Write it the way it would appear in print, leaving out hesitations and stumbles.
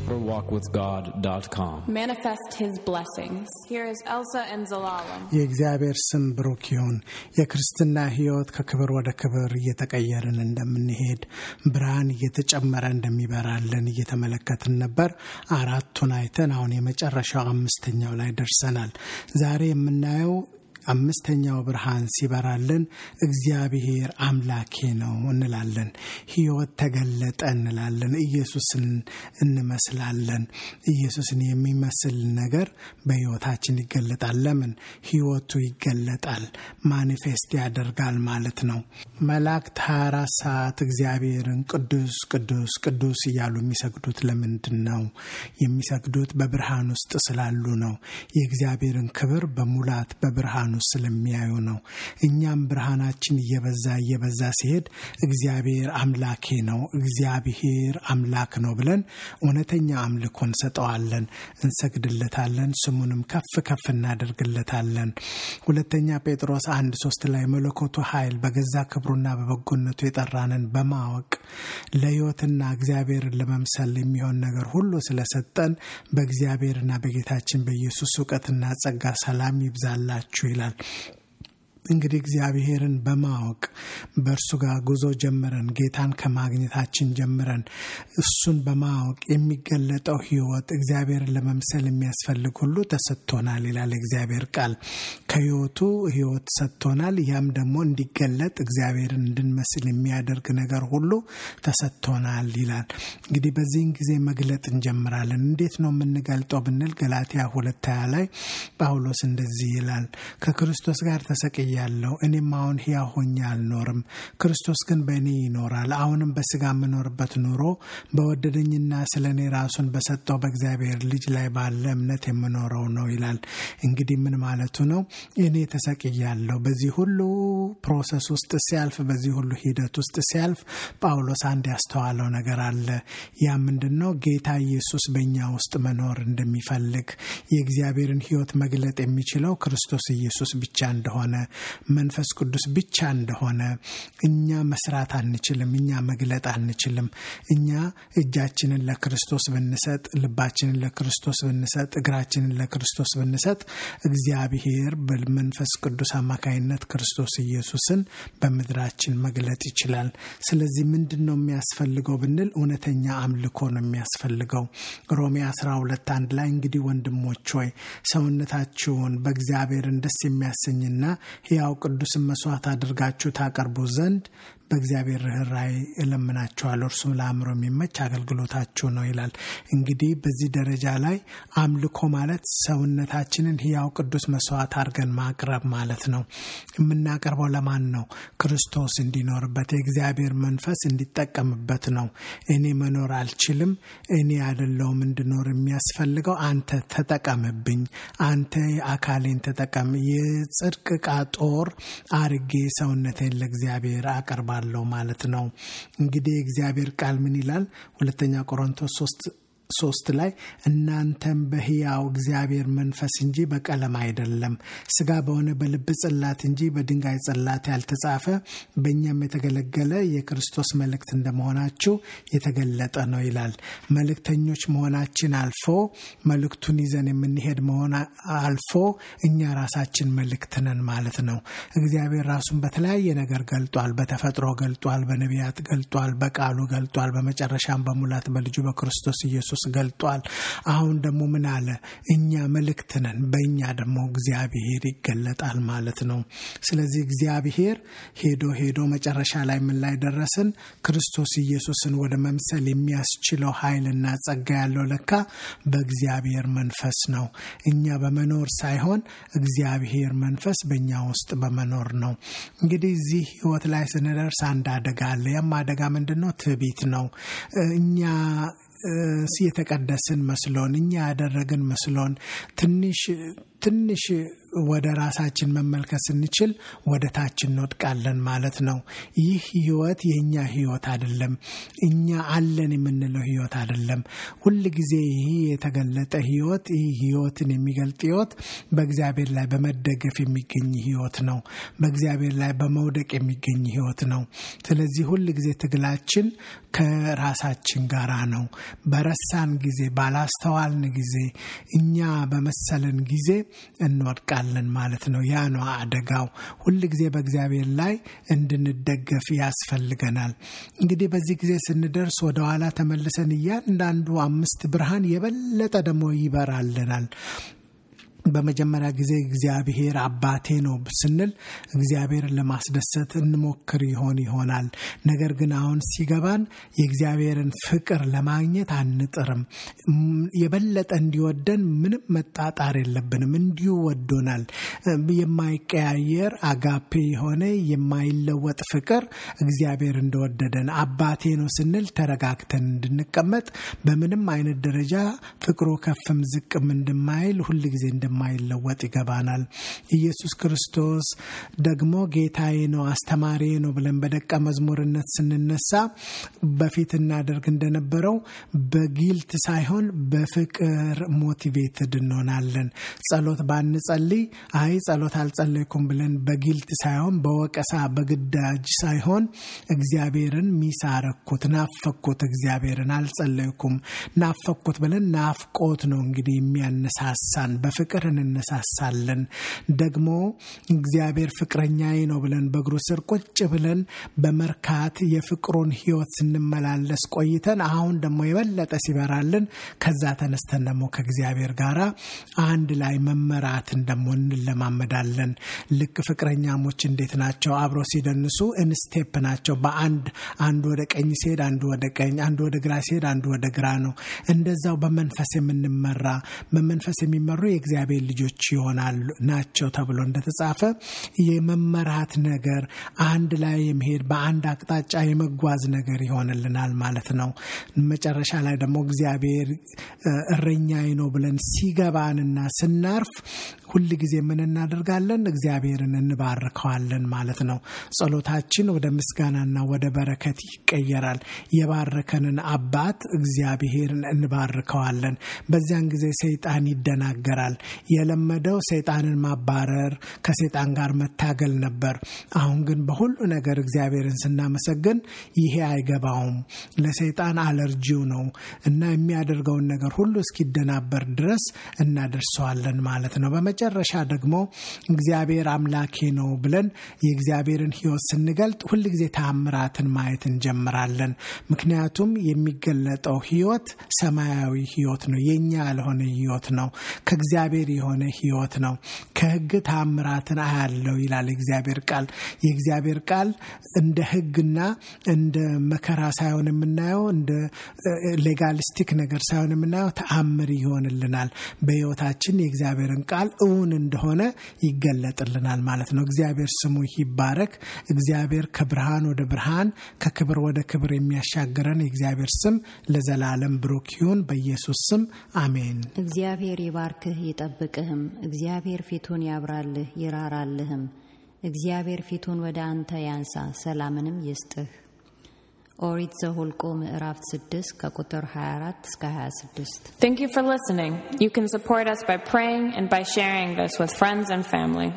deeperwalkwithgod.com. Manifest His blessings. Here is Elsa and Zelalem. የእግዚአብሔር ስም ብሩክ ይሁን። የክርስትና ሕይወት ከክብር ወደ ክብር እየተቀየርን እንደምንሄድ ብርሃን እየተጨመረ እንደሚበራልን እየተመለከትን ነበር። አራቱን አይተን አሁን የመጨረሻው አምስተኛው ላይ ደርሰናል። ዛሬ የምናየው አምስተኛው ብርሃን ሲበራልን እግዚአብሔር አምላኬ ነው እንላለን። ሕይወት ተገለጠ እንላለን። ኢየሱስን እንመስላለን። ኢየሱስን የሚመስል ነገር በሕይወታችን ይገለጣል። ለምን? ሕይወቱ ይገለጣል፣ ማኒፌስት ያደርጋል ማለት ነው። መላእክት 24 ሰዓት እግዚአብሔርን ቅዱስ ቅዱስ ቅዱስ እያሉ የሚሰግዱት ለምንድን ነው? የሚሰግዱት በብርሃን ውስጥ ስላሉ ነው። የእግዚአብሔርን ክብር በሙላት በብርሃን ስለሚያዩ ነው። እኛም ብርሃናችን እየበዛ ሲሄድ እግዚአብሔር አምላኬ ነው፣ እግዚአብሔር አምላክ ነው ብለን እውነተኛ አምልኮን ሰጠዋለን፣ እንሰግድለታለን፣ ስሙንም ከፍ ከፍ እናደርግለታለን። ሁለተኛ ጴጥሮስ 1:3 ላይ መለኮቱ ኃይል በገዛ ክብሩና በበጎነቱ የጠራንን በማወቅ ለሕይወትና እግዚአብሔርን ለመምሰል የሚሆን ነገር ሁሉ ስለሰጠን በእግዚአብሔርና በጌታችን በኢየሱስ ዕውቀትና ጸጋ ሰላም ይብዛላችሁ ይላል። እንግዲህ እግዚአብሔርን በማወቅ በእርሱ ጋር ጉዞ ጀምረን ጌታን ከማግኘታችን ጀምረን እሱን በማወቅ የሚገለጠው ሕይወት እግዚአብሔርን ለመምሰል የሚያስፈልግ ሁሉ ተሰጥቶናል ይላል እግዚአብሔር ቃል። ከሕይወቱ ሕይወት ሰጥቶናል። ያም ደግሞ እንዲገለጥ እግዚአብሔርን እንድንመስል የሚያደርግ ነገር ሁሉ ተሰጥቶናል ይላል። እንግዲህ በዚህን ጊዜ መግለጥ እንጀምራለን። እንዴት ነው የምንገልጠው ብንል ገላትያ 2:20 ላይ ጳውሎስ እንደዚህ ይላል፣ ከክርስቶስ ጋር ተሰቅዬ ያለው እኔም አሁን ሕያው ሆኜ አልኖርም፣ ክርስቶስ ግን በእኔ ይኖራል። አሁንም በሥጋ የምኖርበት ኑሮ በወደደኝና ስለኔ ራሱን በሰጠው በእግዚአብሔር ልጅ ላይ ባለ እምነት የምኖረው ነው ይላል። እንግዲህ ምን ማለቱ ነው? እኔ ተሰቅያለሁ። በዚህ ሁሉ ፕሮሰስ ውስጥ ሲያልፍ፣ በዚህ ሁሉ ሂደት ውስጥ ሲያልፍ ጳውሎስ አንድ ያስተዋለው ነገር አለ። ያ ምንድነው? ጌታ ኢየሱስ በእኛ ውስጥ መኖር እንደሚፈልግ፣ የእግዚአብሔርን ሕይወት መግለጥ የሚችለው ክርስቶስ ኢየሱስ ብቻ እንደሆነ፣ መንፈስ ቅዱስ ብቻ እንደሆነ፣ እኛ መስራት አንችልም፣ እኛ መግለጥ አንችልም። እኛ እጃችንን ለክርስቶስ ብንሰጥ፣ ልባችንን ለክርስቶስ ብንሰጥ፣ እግራችንን ለክርስቶስ ብንሰጥ እግዚአብሔር በመንፈስ ቅዱስ አማካይነት ክርስቶስ ኢየሱስን በምድራችን መግለጥ ይችላል። ስለዚህ ምንድነው የሚያስፈልገው ብንል እውነተኛ አምልኮ ነው የሚያስፈልገው። ሮሜ 12:1 ላይ እንግዲህ ወንድሞች ሆይ ሰውነታችሁን በእግዚአብሔር ደስ የሚያሰኝና ሕያው ቅዱስ መስዋዕት አድርጋችሁ ታቀርቡ ዘንድ በእግዚአብሔር ርኅራኄ እለምናችኋለሁ፣ እርሱም ለአእምሮ የሚመች አገልግሎታችሁ ነው ይላል። እንግዲህ በዚህ ደረጃ ላይ አምልኮ ማለት ሰውነታችንን ሕያው ቅዱስ መስዋዕት አድርገን ማቅረብ ማለት ነው። የምናቀርበው ለማን ነው? ክርስቶስ እንዲኖርበት፣ የእግዚአብሔር መንፈስ እንዲጠቀምበት ነው። እኔ መኖር አልችልም፣ እኔ አይደለሁም እንድኖር የሚያስፈልገው፣ አንተ ተጠቀምብኝ፣ አንተ አካሌን ተጠቀም፣ የጽድቅ ዕቃ ጦር አርጌ ሰውነቴን ለእግዚአብሔር አቀርባለሁ ማለት ነው። እንግዲህ እግዚአብሔር ቃል ምን ይላል? 2 ቆሮንቶስ 3 ላይ እናንተም በሕያው እግዚአብሔር መንፈስ እንጂ በቀለም አይደለም፣ ሥጋ በሆነ በልብ ጽላት እንጂ በድንጋይ ጽላት ያልተጻፈ በእኛም የተገለገለ የክርስቶስ መልእክት እንደመሆናችሁ የተገለጠ ነው ይላል። መልእክተኞች መሆናችን አልፎ መልእክቱን ይዘን የምንሄድ መሆን አልፎ እኛ ራሳችን መልእክት ነን ማለት ነው። እግዚአብሔር ራሱን በተለያየ ነገር ገልጧል። በተፈጥሮ ገልጧል፣ በነቢያት ገልጧል፣ በቃሉ ገልጧል፣ በመጨረሻም በሙላት በልጁ በክርስቶስ ኢየሱስ ገልጧል። አሁን ደግሞ ምን አለ? እኛ መልእክት ነን፣ በእኛ ደግሞ እግዚአብሔር ይገለጣል ማለት ነው። ስለዚህ እግዚአብሔር ሄዶ መጨረሻ ላይ ምን ላይ ደረስን? ክርስቶስ ኢየሱስን ወደ መምሰል የሚያስችለው ኃይልና ጸጋ ያለው ለካ በእግዚአብሔር መንፈስ ነው። እኛ በመኖር ሳይሆን እግዚአብሔር መንፈስ በእኛ ውስጥ በመኖር ነው። እንግዲህ እዚህ ሕይወት ላይ ስንደርስ አንድ አደጋ አለ። ያም አደጋ ምንድነው? ትዕቢት ነው። እኛ የተቀደስን መስሎን፣ እኛ ያደረግን መስሎን፣ ትንሽ ወደ ራሳችን መመልከት ስንችል ወደ ታች እንወድቃለን ማለት ነው። ይህ ህይወት የኛ ህይወት አይደለም። እኛ አለን የምንለው ህይወት አይደለም። ሁሉ ጊዜ ይሄ የተገለጠ ህይወት ይህ ህይወትን የሚገልጥ ህይወት በእግዚአብሔር ላይ በመደገፍ የሚገኝ ህይወት ነው። በእግዚአብሔር ላይ በመውደቅ የሚገኝ ህይወት ነው። ስለዚህ ሁሉ ጊዜ ትግላችን ከራሳችን ጋራ ነው። በረሳን ጊዜ ባላስተዋልን ጊዜ እኛ በመሰለን ጊዜ እንወድቃለን ማለት ነው። ያ ነው አደጋው። ሁሉ ጊዜ በእግዚአብሔር ላይ እንድንደገፍ ያስፈልገናል። እንግዲህ በዚህ ጊዜ ስንደርስ ወደ ኋላ ተመልሰን እያንዳንዱ 5 ብርሃን የበለጠ ደግሞ ይበራልናል። በመጀመሪያ ጊዜ እግዚአብሔር አባቴ ነው ስንል እግዚአብሔርን ለማስደሰት እንሞክር ይሆናል። ነገር ግን አሁን ሲገባን የእግዚአብሔርን ፍቅር ለማግኘት አንጥርም። የበለጠ እንዲወደን ምንም መጣጣር የለብንም። እንዲሁ ወዶናል። የማይቀያየር አጋፔ የሆነ የማይለወጥ ፍቅር እግዚአብሔር እንደወደደን አባቴ ነው ስንል ተረጋግተን እንድንቀመጥ በምንም አይነት ደረጃ ፍቅሩ ከፍም ዝቅም እንደማይል ሁሉ ጊዜ ማይለወጥ ይገባናል። ኢየሱስ ክርስቶስ ደግሞ ጌታዬ ነው አስተማሪ ነው ብለን በደቀ መዝሙርነት ስንነሳ በፊት እናደርግ እንደነበረው በጊልት ሳይሆን በፍቅር ሞቲቬትድ እንሆናለን። ጸሎት ባንጸልይ አይ ጸሎት አልጸለይኩም ብለን በጊልት ሳይሆን በወቀሳ በግዳጅ ሳይሆን እግዚአብሔርን ሚሳረኩት ናፈኩት እግዚአብሔርን አልጸለይኩም ናፈኩት ብለን ናፍቆት ነው እንግዲህ የሚያነሳሳን በፍቅር እንነሳሳለን። ደግሞ እግዚአብሔር ፍቅረኛዬ ነው ብለን በእግሩ ስር ቁጭ ብለን በመርካት የፍቅሩን ህይወት ስንመላለስ ቆይተን አሁን ደግሞ የበለጠ ሲበራልን ከዛ ተነስተን ደግሞ ከእግዚአብሔር ጋራ አንድ ላይ መመራትን ደግሞ እንለማመዳለን። ልክ ፍቅረኛሞች እንዴት ናቸው? አብረው ሲደንሱ ኢንስቴፕ ናቸው። በአንድ አንዱ ወደ ቀኝ ሲሄድ አንዱ ወደ ቀኝ፣ አንዱ ወደ ግራ ሲሄድ አንዱ ወደ ግራ ነው። እንደዛው በመንፈስ የምንመራ በመንፈስ የሚመሩ የእግዚአብሔር ልጆች ይሆናሉ ናቸው ተብሎ እንደተጻፈ የመመራት ነገር አንድ ላይ የሚሄድ በአንድ አቅጣጫ የመጓዝ ነገር ይሆንልናል ማለት ነው። መጨረሻ ላይ ደግሞ እግዚአብሔር እረኛዬ ነው ብለን ሲገባንና ስናርፍ ሁሉ ጊዜ ምን እናደርጋለን? እግዚአብሔርን እንባርከዋለን ማለት ነው። ጸሎታችን ወደ ምስጋናና ወደ በረከት ይቀየራል። የባረከንን አባት እግዚአብሔርን እንባርከዋለን። በዚያን ጊዜ ሰይጣን ይደናገራል። የለመደው ሰይጣንን ማባረር ከሰይጣን ጋር መታገል ነበር። አሁን ግን በሁሉ ነገር እግዚአብሔርን ስናመሰግን ይሄ አይገባውም። ለሰይጣን አለርጂው ነው እና የሚያደርገውን ነገር ሁሉ እስኪደናበር ድረስ እናደርሰዋለን ማለት ነው። በመጨረሻ ደግሞ እግዚአብሔር አምላኬ ነው ብለን የእግዚአብሔርን ህይወት ስንገልጥ ሁሉ ጊዜ ተአምራትን ማየት እንጀምራለን። ምክንያቱም የሚገለጠው ህይወት ሰማያዊ ህይወት ነው። የኛ ያልሆነ ህይወት ነው። ከእግዚአብሔር የሆነ ህይወት ነው። ከህግ ተአምራትን አያለው ይላል እግዚአብሔር ቃል። የእግዚአብሔር ቃል እንደ ህግና እንደ መከራ ሳይሆን የምናየው እንደ ሌጋሊስቲክ ነገር ሳይሆን የምናየው ተአምር ይሆንልናል። በህይወታችን የእግዚአብሔርን ቃል እውን እንደሆነ ይገለጥልናል ማለት ነው። እግዚአብሔር ስሙ ይባረክ። እግዚአብሔር ከብርሃን ወደ ብርሃን ከክብር ወደ ክብር የሚያሻግረን የእግዚአብሔር ስም ለዘላለም ብሩክ ይሁን። በኢየሱስ ስም አሜን። እግዚአብሔር ይባርክህ ይጠብቅህም። እግዚአብሔር ፊቱን ያብራልህ ይራራልህም። እግዚአብሔር ፊቱን ወደ አንተ ያንሳ ሰላምንም ይስጥህ። ኦሪት ዘኍልቍ ምዕራፍ 6 ከቁጥር 24 እስከ 26። Thank you for listening. You can support us by praying and by sharing this with friends and family.